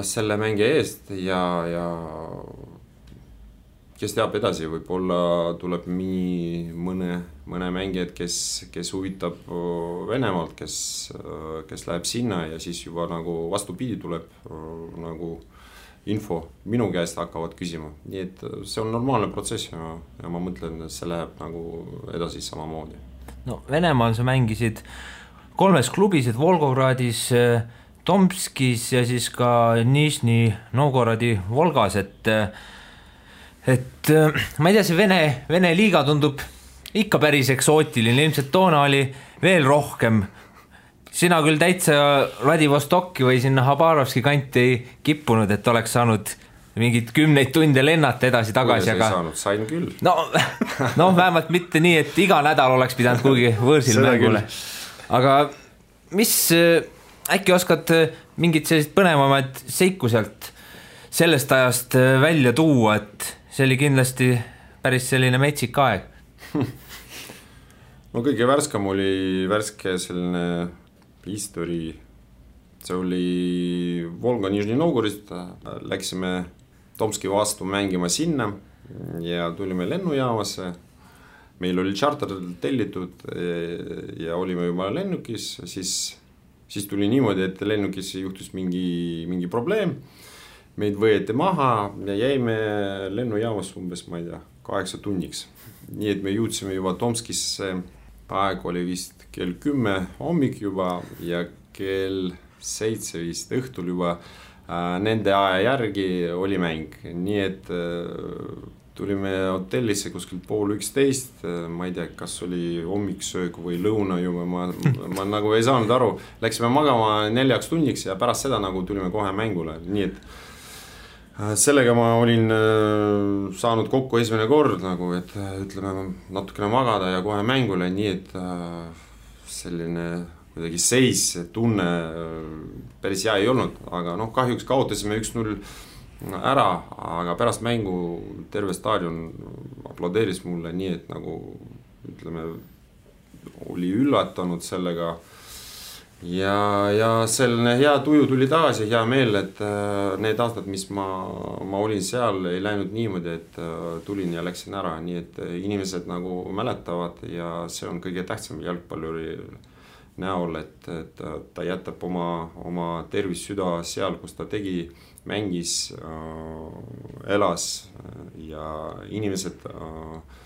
selle mängija eest ja kes teab edasi, võib-olla tuleb mõne mängijad, kes huvitab Venemaalt, kes läheb sinna ja siis juba nagu vastupidi tuleb nagu info minu käest hakkavad küsima, nii et see on normaalne protsess ja ma mõtlen, et see läheb nagu edasi samamoodi. No Venemaal sa mängisid 3 klubis, et Volgogradis, Tomskis ja siis ka Nižni Novgorodi Volgas, et ma ei tea, see Vene liiga tundub ikka päris eksootiline, ilmselt toona oli veel rohkem. Sina küll täitsa Vladivostokki või sinna Habarovski kanti ei kippunud, et oleks saanud mingid 10 tunde lennata edasi-tagasi. Kuidas ei saanud, sain küll. No vähemalt mitte nii, et iga nädal oleks pidanud kuhugi võõrsil mängule. Aga mis, äkki oskad mingid sellised põnevamad seiku sealt sellest ajast välja tuua, et see oli kindlasti päris selline metsik aeg? No kõige värskam oli selline history, see oli Volga Nižni Novgorist, läksime Tomski vastu mängima sinna ja tulime lennujaamasse, meil oli charter tellitud ja olime juba lennukis, siis tuli niimoodi, et lennukis juhtus mingi probleem, meid võeti maha ja jäime lennujaamas umbes, ma ei tea, 8 tunniks. Nii et me jõudsime juba Tomskisse, aeg oli vist kell 10 hommik juba ja kell 7 vist õhtul juba nende aja järgi oli mäng. Nii et tulime hotellisse kuskil 10:30, ma ei tea, kas oli hommiksöög või lõuna juba, ma nagu ei saanud aru. Läksime magama 4 tunniks ja pärast seda nagu tulime kohe mängule, nii et sellega ma olin saanud kokku esimene kord nagu, et ütleme natukene magada ja kohe mängule, nii et selline kuidagi seis, tunne päris hea ei olnud, aga kahjuks kaotasime 1-0 ära, aga pärast mängu terve staadion aplodeeris mulle, nii et nagu ütleme oli üllatanud sellega. Ja selline hea tuju tuli tagasi, hea meel, et need aastad, mis ma olin seal, ei läinud niimoodi, et tulin ja läksin ära, nii et inimesed nagu mäletavad ja see on kõige tähtsam jalgpalluri näol, et ta jätab oma tervis süda seal, kus ta tegi, mängis, elas ja inimesed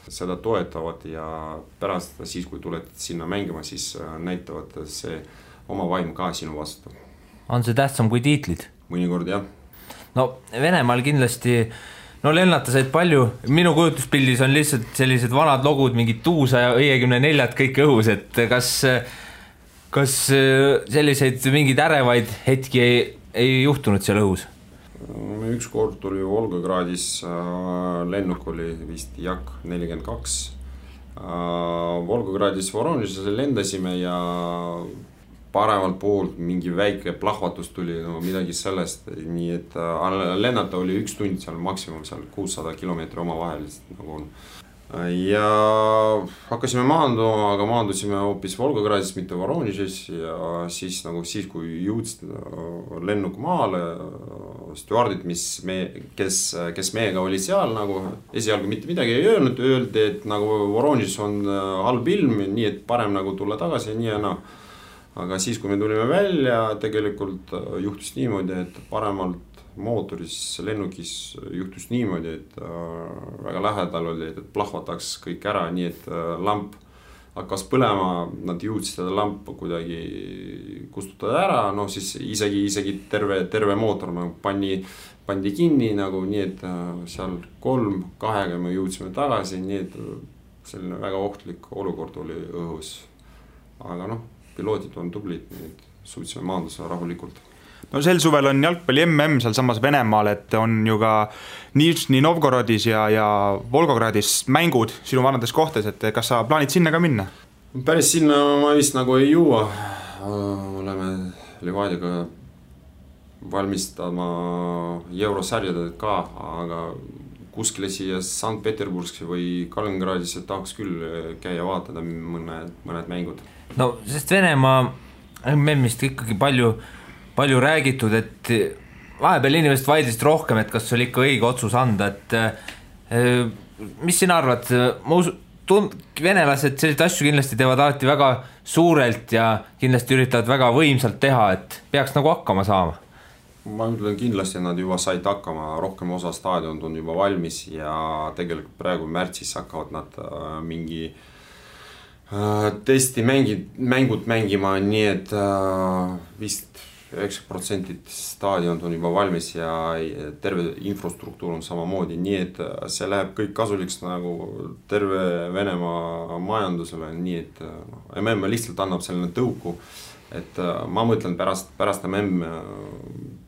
seda toetavad ja pärast siis, kui tuled sinna mängima, siis näitavad see oma vaim ka sinu vastu. On see tähtsam kui tiitlid? Mõnikord, jah. No Venemaal kindlasti, lennata said palju, minu kujutuspildis on lihtsalt sellised vanad logud, mingid Tuusa ja 54 kõik õhus, et kas selliseid mingeid ärevaid hetki ei juhtunud seal õhus? Üks kord tuli Volgogradis, lennuk oli vist Jak 42. Volgogradis Voronezhisse lendasime ja paremalt poolt mingi väike plahvatus tuli, midagi sellest, nii et lennata oli 1 tund seal maksimum, seal 600 kilomeetri oma vahelist nagu on. Ja hakkasime maanduma, aga maandusime hoopis Volgogradis, mitte Voronezhis ja siis kui jõudsid lennuk maale, stjuardid, kes meiega oli seal, nagu esialgu mitte midagi ei öelnud, öeldi, et nagu Voronezhis on halb ilm, nii et parem nagu tulla tagasi ja nii ja naa. Aga siis, kui me tulime välja, tegelikult juhtus niimoodi, et paremalt mootoris lennukis juhtus niimoodi, et väga lähedal oli, et plahvataks kõik ära, nii et lamp hakkas põlema, nad jõudsid seda lampu kuidagi kustutada ära, siis isegi terve mootor pandi kinni, nagu, nii et seal 3-2 me jõudsime tagasi, nii et selline väga ohtlik olukord oli õhus. Aga piloodid on tublid, nii et suutsime maandusega rahulikult. No sel suvel on jalgpalli MM seal samas Venemaal, et on ju ka Nižni Novgorodis ja Volgogradis mängud sinu vanades kohtades, et kas sa plaanid sinna ka minna? Päris sinna ma vist nagu ei jõua. Oleme Levadiga valmistama eurosarjaded ka, aga kuskile siia Sankt-Peterburgisse või Kaliningradisse tahaks küll käia vaatada mõned mängud. No sest Venemaa MM-ist ikkagi palju räägitud, et vahepeal inimesed vaidlesid rohkem, et kas oli ikka õige otsus anda, et mis sina arvad, venelased selliseid asju kindlasti teevad alati väga suurelt ja kindlasti üritavad väga võimsalt teha, et peaks nagu hakkama saama. Ma ütlen kindlasti, nad juba said hakkama, rohkem osa staadion on juba valmis ja tegelikult praegu märtsis hakkavad nad mingi testi mängud mängima, nii et vist 90% staadion on juba valmis ja terve infrastruktuur on samamoodi, nii et see läheb kõik kasuliks nagu terve Venemaa majandusele, nii et MM lihtsalt annab selline tõuku, et ma mõtlen pärast MM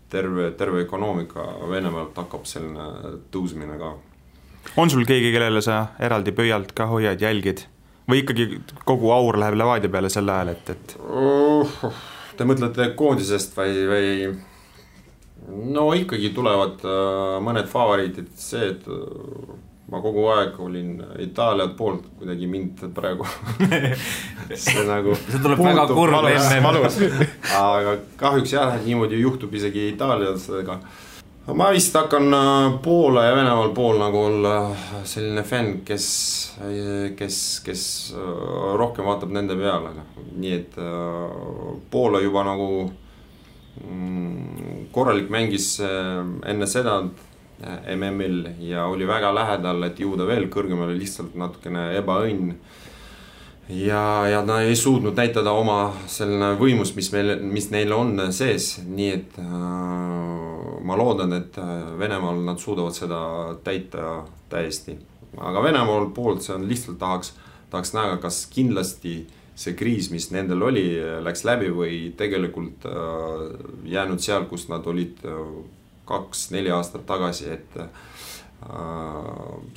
terve ökonoomika Venemaalt hakkab selline tõusmine ka. On sul keegi, kellele sa eraldi pöialt ka hoiad, jälgid? Või ikkagi kogu aur läheb Levadia peale sel ajal, et... Te mõtlete koondisest või... No ikkagi tulevad mõned favoriitid, see, et ma kogu aeg olin Itaaliat poolt, kuidagi mind praegu see nagu see tuleb väga kurb valus. Aga kahjuks jah, niimoodi juhtub isegi Itaaliasega. Ma vist hakkan Poola ja Venemaal pool nagu olla selline fänn, kes rohkem vaatab nende peale. Nii et Poola juba nagu korralik mängis enne seda MM-il ja oli väga lähedal, et jõuda veel kõrgemale, lihtsalt natukene ebaõnn. Ja nad ei suutnud näitada oma selline võimus, mis neil on sees, nii et ma loodan, et Venemaal nad suudavad seda täita täiesti. Aga Venemaal poolt see on lihtsalt tahaks näha, kas kindlasti see kriis, mis nendel oli, läks läbi või tegelikult jäänud seal, kus nad olid 2-4 aastat tagasi, et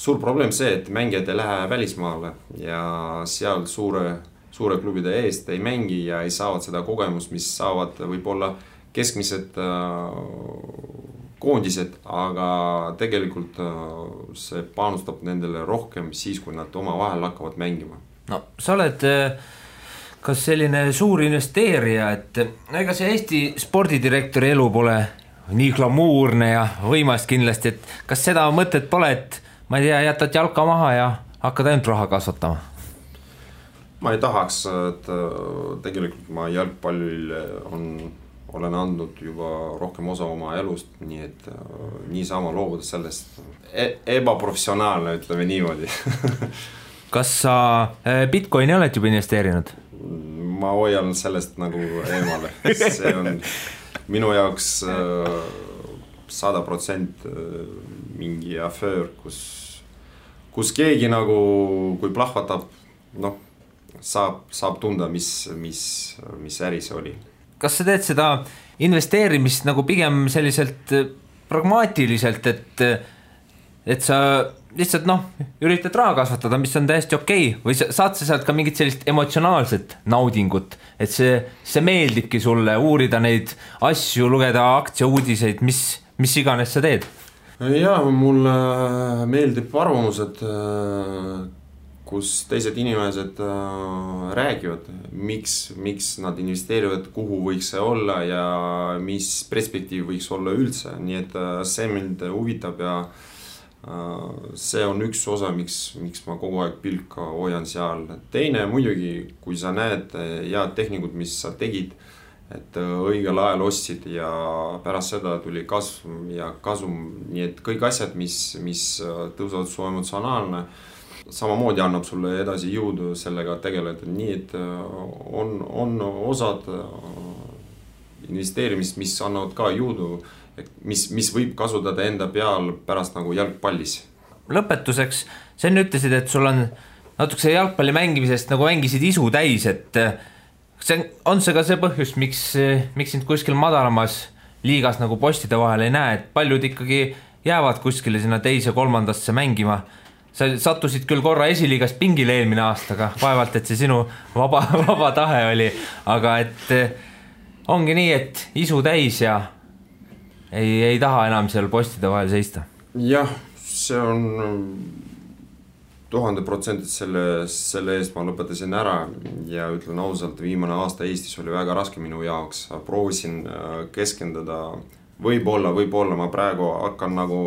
suur probleem see, et mängijad ei lähe välismaale ja seal suure klubide eest ei mängi ja ei saavad seda kogemust, mis saavad võib-olla keskmised koondised, aga tegelikult see panustab nendele rohkem siis, kui nad oma vahel hakkavad mängima. No sa oled kas selline suur investeerija, et ega see Eesti spordidirektori elu pole nii glamuurne ja võimast kindlasti, et kas seda mõtet pole, et ma ei tea, jätad jalka maha ja hakkad ainult raha kasvatama? Ma ei tahaks, et tegelikult ma jalgpallil olen andnud juba rohkem osa oma elust, nii et niisama loobuda sellest ebaprofessionaalne, ütleme niimoodi. Kas sa Bitcoini oled juba investeerinud? Ma hoian sellest nagu eemale, see on minu jaoks 100% mingi aföör, kus keegi nagu, kui plahvatab, noh, saab tunda, mis äri see oli. Kas sa teed seda investeerimist nagu pigem selliselt pragmaatiliselt, et sa lihtsalt üritad raha kasvatada, mis on täiesti okei, või saad sa sealt ka mingit sellist emotsionaalset naudingut, et see meeldibki sulle uurida neid asju, lugeda aktsiauudiseid, mis iganes sa teed? Jaa, mulle meeldib arvamused, kus teised inimesed räägivad, miks nad investeerivad, kuhu võiks see olla ja mis perspektiiv võiks olla üldse, nii et see mind huvitab ja see on üks osa, miks ma kogu aeg pilka hoian seal. Teine muidugi, kui sa näed head tehnikud, mis sa tegid, et õigel ajal ostsid ja pärast seda tuli kasv ja kasum, nii et kõik asjad, mis tõusavad su emotsionaalne, samamoodi annab sulle edasi jõudu sellega tegeleda, nii et on osad investeerimist, mis annavad ka jõudu, mis võib kasutada enda peal pärast nagu jalgpallis. Lõpetuseks, sa enne ütlesid, et sul on natukese jalgpalli mängimisest nagu mängisid isu täis, et on see ka see põhjus, miks sind kuskil madalamas liigas nagu postide vahel ei näe, et paljud ikkagi jäävad kuskile sinna teise kolmandasse mängima. Sa sattusid küll korra esiliigast pingile eelmine aastaga, vaevalt, et see sinu vaba tahe oli, aga et ongi nii, et isu täis ja ei taha enam seal postide vahel seista. Jah, see on 1000% selle eest ma lõpetasin ära ja ütlen ausalt, viimane aasta Eestis oli väga raske minu jaoks, proovisin keskenduda, võib-olla ma praegu hakkan nagu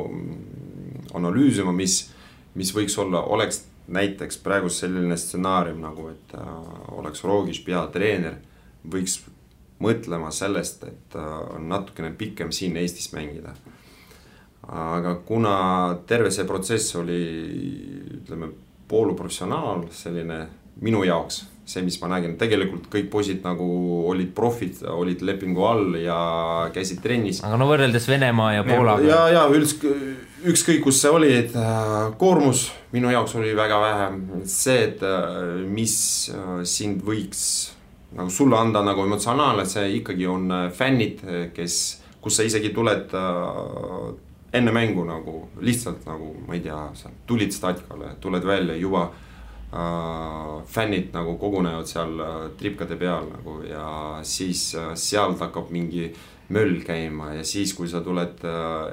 analüüsima, mis võiks olla, oleks näiteks praegu selline stsenaarium nagu, et oleks Rogiš peatreener, võiks mõtlema sellest, et natukene pikem siin Eestis mängida. Aga kuna terve see protsess oli, ütleme, pooluprofessionaal, selline minu jaoks, see, mis ma nägin, tegelikult kõik poisid nagu olid profid, olid lepingu all ja käisid trennis. Aga no võrreldes Venemaa ja Poolaga. Ja ükskõik kus see oli, et koormus minu jaoks oli väga vähe. See, et mis sind võiks nagu sulle anda nagu emotsionaalne, see ikkagi on fännid, kus sa isegi tuled enne mängu nagu lihtsalt nagu, ma ei tea, sa tulid staadikale, tuled välja juba fännid nagu kogunevad seal tripkade peal nagu ja siis sealt hakkab mingi möll käima ja siis, kui sa tuled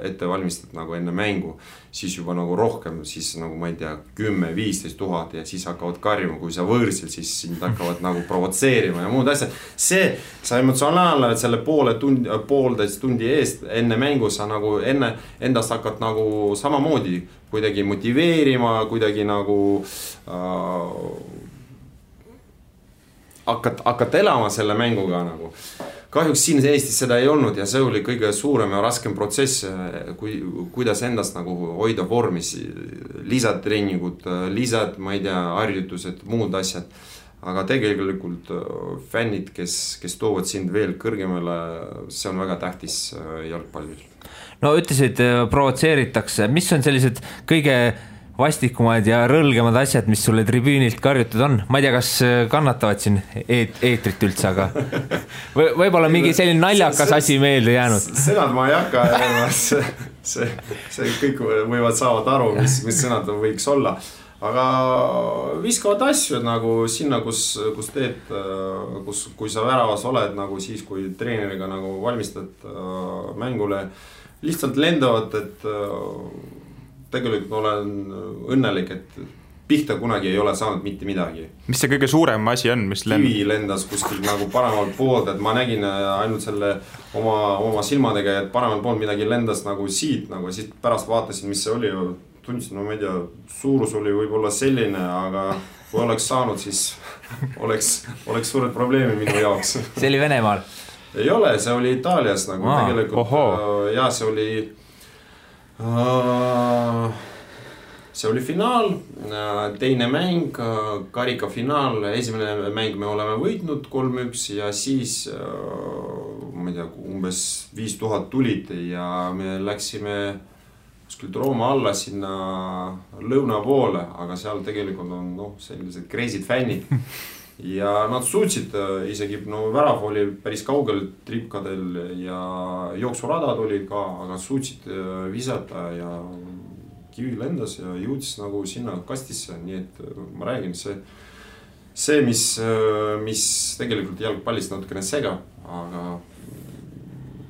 ette valmistad nagu enne mängu, siis juba nagu rohkem, siis nagu ma ei tea, 10-15 000 ja siis hakkavad karjuma, kui sa võõrsil, siis sind hakkavad nagu provotseerima ja muud asjad. See, sa emotsionaalne, et selle poolteist tundi eest enne mängu sa nagu enne endast hakkad nagu samamoodi kuidagi motiveerima, kuidagi nagu hakkad elama selle mänguga nagu. Kahjuks siin Eestis seda ei olnud ja see oli kõige suurem ja raskem protsess, kuidas endast nagu hoida vormis, lisatreeningud, ma ei tea, harjutused, muud asjad. Aga tegelikult fännid, kes toovad sind veel kõrgemale, see on väga tähtis jalgpallis. No ütlesid, provotseeritakse, mis on sellised kõige vastikumad ja rõlgemad asjad, mis sulle tribüünilt karjutud on. Ma ei tea, kas kannatavad siin eetrit üldse, aga võib-olla mingi selline naljakas asi meelde jäänud. Sõnad ma ei hakka, see kõik võivad saavad aru, mis sõnad võiks olla. Aga viskavad asju nagu sinna, kus teed, kui sa väravas oled, nagu siis, kui treeneriga nagu valmistad mängule, lihtsalt lendavad, et tegelikult olen õnnelik, et pihta kunagi ei ole saanud mitte midagi. Mis see kõige suurem asi on? Kivi lendas kuskil nagu paremalt poolt, et ma nägin ainult selle oma silmadega, et paremalt poolt midagi lendas nagu siit, nagu siis pärast vaatasin, mis see oli, tundsin, no ma ei tea, suurus oli võib-olla selline, aga kui oleks saanud, siis oleks suured probleemi minu jaoks. See oli Venemaal? Ei ole, see oli Itaalias nagu tegelikult ja see oli finaal, teine mäng, karika finaal, esimene mäng me oleme võitnud 3-1 ja siis ma ei tea, umbes 5000 tulid ja me läksime kuskilt Rooma alla sinna lõuna poole, aga seal tegelikult on sellised crazy'd fännid ja nad suutsid isegi, värav oli päris kaugel tripkadel ja jooksuradad olid ka, aga suutsid visata ja kivi lendas ja jõudis nagu sinna kastisse, nii et ma räägin, see mis tegelikult jalgpallist natukene segab, aga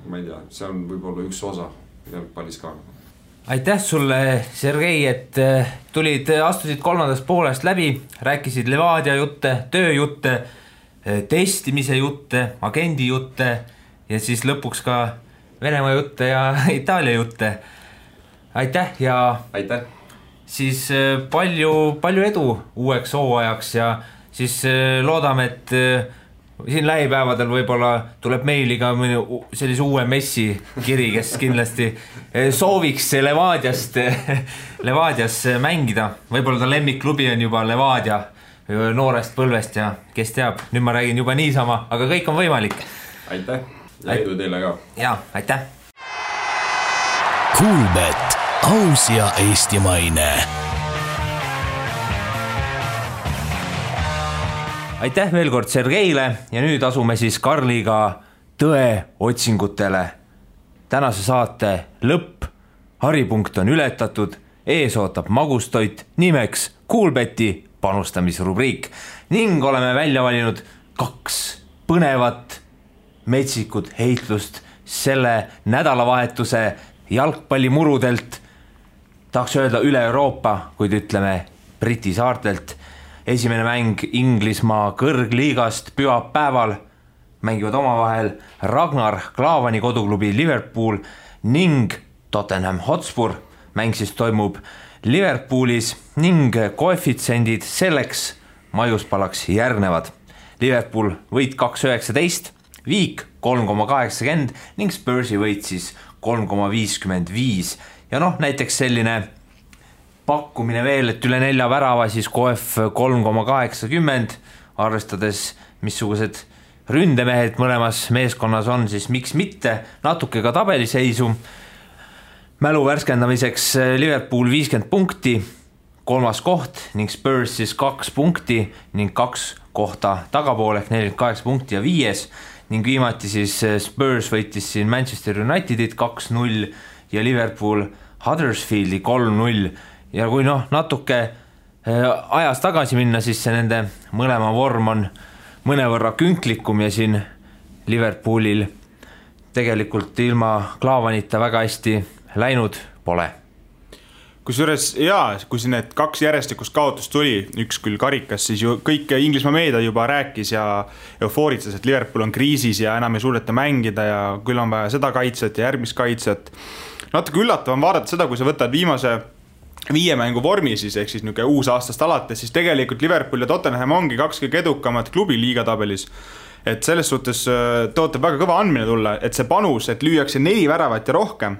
ma ei tea, see on võib-olla üks osa jalgpallis ka. Aitäh sulle, Sergei, et astusid kolmandast poolest läbi, rääkisid Levadia jutte, tööjutte, testimise jutte, agendi jutte ja siis lõpuks ka Venemaa jutte ja Itaalia jutte. Aitäh ja aitäh. Siis palju edu uueks hooajaks ja siis loodame, et siin lähipäevadel võib-olla tuleb meiliga sellise uue Messi kiri, kes kindlasti sooviks Levadias mängida. Võib-olla ta lemmikklubi on juba Levadia noorest põlvest ja kes teab, nüüd ma räägin juba niisama, aga kõik on võimalik. Aitäh ja edu teile ka. Ja, aitäh. Kuulbet, aus ja eestimaine. Aitäh veel kord Sergeile ja nüüd asume siis Karliga tõe otsingutele. Tänase saate lõpp, haripunkt on ületatud, ees ootab magustoit nimeks Kuulbeti panustamisrubriik ning oleme välja valinud 2 põnevat metsikut heitlust selle nädalavahetuse jalgpallimurudelt. tahaks öelda üle Euroopa, kuid ütleme Briti saartelt. Esimene mäng Inglismaa kõrgliigast pühapäeval mängivad omavahel Ragnar Klavani koduklubi Liverpool ning Tottenham Hotspur. Mäng siis toimub Liverpoolis ning koefitsendid selleks maiuspalaks järgnevad. Liverpool võit 2,19, Viik 3,80 ning Spursi võit siis 3,55. Ja näiteks selline pakkumine veel, et üle 4 värava siis koef 3,80, arvestades missugused ründemehed mõlemas meeskonnas on, siis miks mitte natuke ka tabeliseisu. Mälu värskendamiseks Liverpool 50 punkti, 3. koht ning Spurs siis 2 punkti ning 2 kohta tagapool ehk 48 punkti ja 5. Ning viimati siis Spurs võitis siin Manchester Unitedit 2-0 ja Liverpool Huddersfieldi 3-0. Ja kui natuke ajas tagasi minna, siis see nende mõlema vorm on mõnevõrra künklikum ja siin Liverpoolil tegelikult ilma Klavanita väga hästi läinud pole. Kusjuures kui siin need 2 järjestikust kaotust tuli, üks küll karikas, siis ju kõik Inglismaa meedia juba rääkis ja eufooritas, et Liverpool on kriisis ja enam ei suudeta mängida ja küll on vaja seda kaitset ja järgmist kaitset. Natuke üllatav on vaadata seda, kui sa võtad viimase 5 mängu vormi siis, ehk siis niisugune uus aastast alates, siis tegelikult Liverpool ja Tottenham ongi 2 kõige edukamad klubi liigatabelis. Et selles suhtes tootab väga kõva andmine tulla, et see panus, et lüüakse 4 väravat ja rohkem,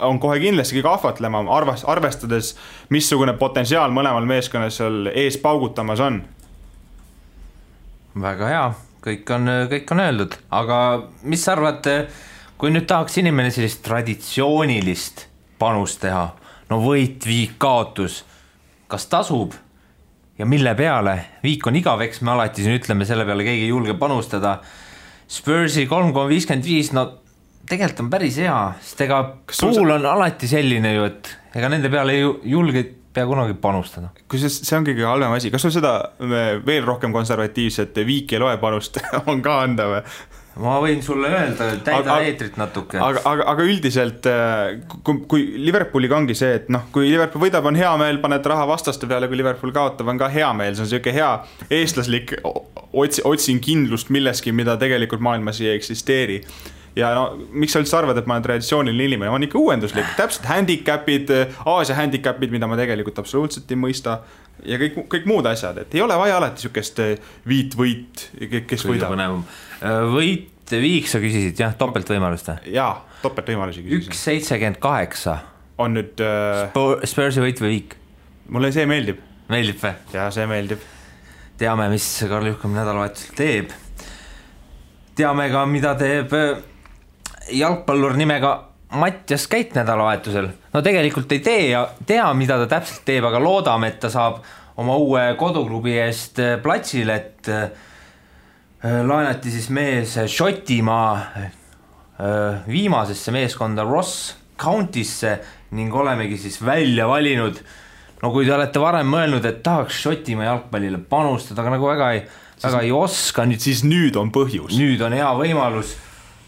on kohe kindlasti kahvatlema, arvestades, missugune potentsiaal mõlemal meeskonnas seal ees paugutamas on. Väga hea, kõik on öeldud, aga mis sa arvad, kui nüüd tahaks inimene sellist traditsioonilist panust teha, võit, Viik, kaotus, kas tasub ja mille peale? Viik on igaveks, me alati siin ütleme, selle peale keegi ei julge panustada. Spursi 3,55, tegelikult on päris hea, sest ega pool on alati selline ju, et ega nende peale ei julge pea kunagi panustada. Kui see on kõige halvem asi, kas sul seda veel rohkem konservatiivset Viik ei loe panust on ka anda või? Ma võin sulle öelda, täida eetrit natuke. Aga üldiselt, kui Liverpooliga ongi see, et kui Liverpool võidab, on hea meel, paned raha vastaste peale, kui Liverpool kaotab, on ka hea meel. See on selline hea eestlaslik otsin kindlust milleski, mida tegelikult maailmas ei eksisteeri. Ja miks sa üldse arvad, et ma olen traditsiooniline inimene? Ma on ikka uuenduslik, täpselt handicapid, Aasia handicapid, mida ma tegelikult absoluutselt ei mõista ja kõik muud asjad, et ei ole vaja alati sükest võit, kes võidab. Võit, Viik sa küsisid, jah, topeltvõimalust? Jaa, topeltvõimalusi küsisid. 1,78 on nüüd Spursi võit või Viik? Mulle see meeldib. Meeldib või? Jaa, see meeldib. Teame, mis Karl Juhkam nädalavahetusel teeb. Teame ka, mida teeb jalgpallur nimega Mattias Käit nädalavahetusel. Tegelikult ei tea, mida ta täpselt teeb, aga loodame, et ta saab oma uue koduklubi eest platsile, et laenati siis mees Šotimaa viimasesse meeskonda Ross County'sse ning olemegi siis välja valinud. Kui te olete varem mõelnud, et tahaks Šotimaa jalgpallile panustada, aga nagu väga ei oska. Siis nüüd on põhjus. Nüüd on hea võimalus.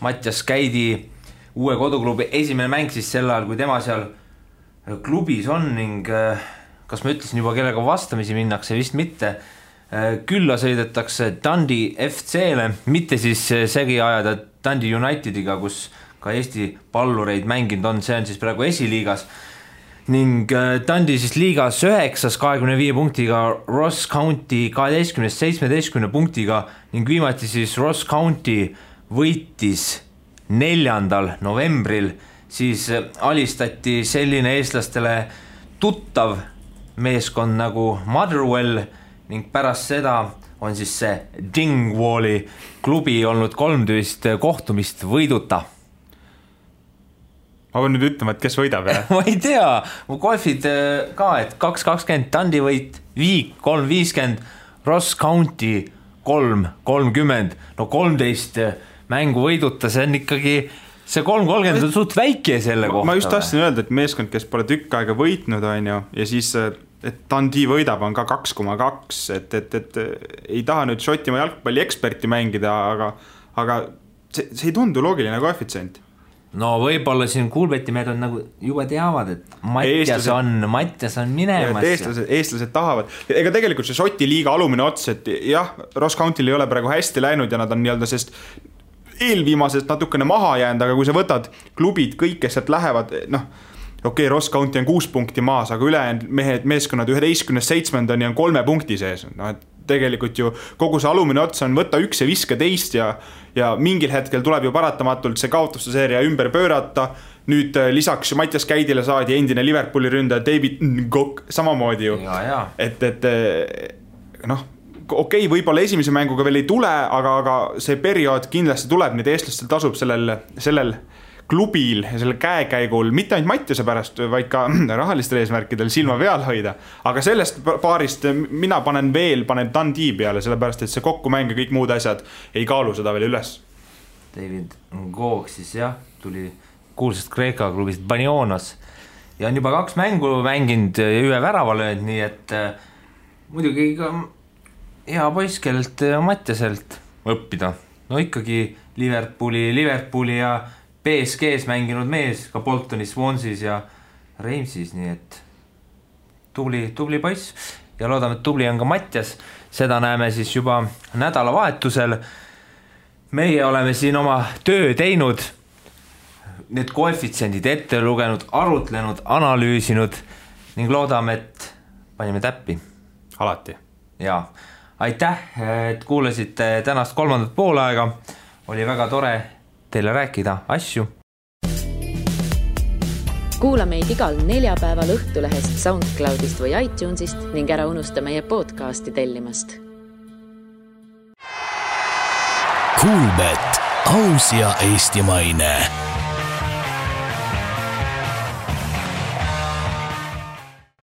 Mattias Käidi uue koduklubi esimene mäng siis sel ajal, kui tema seal klubis on ning kas ma ütlesin juba, kellega vastamisi minnakse, vist mitte. Külla sõidetakse Dundee FC-le, mitte siis segi ajada Dundee Unitediga, kus ka Eesti pallureid mänginud on, see on siis praegu esiliigas. Ning Dundee siis liigas 9. 25 punktiga, Ross County 12. 17 punktiga ning viimati siis Ross County võitis 4. novembril, siis alistati selline eestlastele tuttav meeskond nagu Motherwell ning pärast seda on siis see Dingwalli klubi olnud 13 kohtumist võiduta. Ma pean nüüd ütlema, et kes võidab, jah? Ma ei tea, mu golfid ka, et 2.20 Dundee võit, Viik 3.50, Ross County 3.30, 13 mängu võiduta, see on ikkagi, see 3.30 on suht väike selle kohta. Ma just tahtsin öelda, et meeskond, kes pole tükk aega võitnud, on ju, ja siis et Dundee võidab on ka 2,2, et ei taha nüüd Šotimaa jalgpalli eksperti mängida, aga see ei tundu loogiline koefitsient. no võib-olla siin Kuulbeti mehed on nagu juba teavad, et Mattias on minemas. Eestlased tahavad. Ega tegelikult see Šoti liiga alumine ots, et jah, Ross County'l ei ole praegu hästi läinud ja nad on nii-öelda sest eelviimasest natukene maha jäänud, aga kui sa võtad klubid, kõik, kes sealt lähevad, noh, okei, Ross County on 6 punkti maas, aga ülejäänud meeskonnad 11-7 on 3 punkti sees. No, et tegelikult ju kogu see alumine ots on võtta 1 ja viska teist ja mingil hetkel tuleb ju paratamatult see kaotuste seeria ümber pöörata. Nüüd lisaks Mattias Käidile saadi endine Liverpooli ründaja David Ngok samamoodi ju. Et noh, okei, võib-olla esimese mänguga veel ei tule, aga see periood kindlasti tuleb, nüüd eestlastel tasub sellel klubil ja selle käekäigul, mitte ainult Mattiase pärast, vaid ka rahalistel eesmärkidel silma peal hoida. Aga sellest paarist mina panen Dundee peale, sellepärast, et see kokkumäng ja kõik muud asjad ei kaalu seda veel üles. David Ngok siis jah, tuli kuulsast Kreeka klubist Banionas ja on juba 2 mängu mänginud ja 1 värava löönud, nii et muidugi ka hea poiss, kellelt Mattiaselt õppida. No ikkagi Liverpooli ja PSG-s mänginud mees, ka Boltonis, Swanseas ja Reimsis, nii et tubli poiss ja loodame, et tubli on ka Mattias. Seda näeme siis juba nädalavahetusel. Meie oleme siin oma töö teinud, need koefitsiendid ette lugenud, arutlenud, analüüsinud ning loodame, et panime täppi. Alati. Jaa. Aitäh, et kuulasite tänast 3. poolaega. Oli väga tore teile rääkida asju. Kuula meid igal 4 päeval Õhtulehest, SoundCloudist või iTunesist ning ära unusta meie podcasti tellimast. Kuulbet, aus ja eestimaine.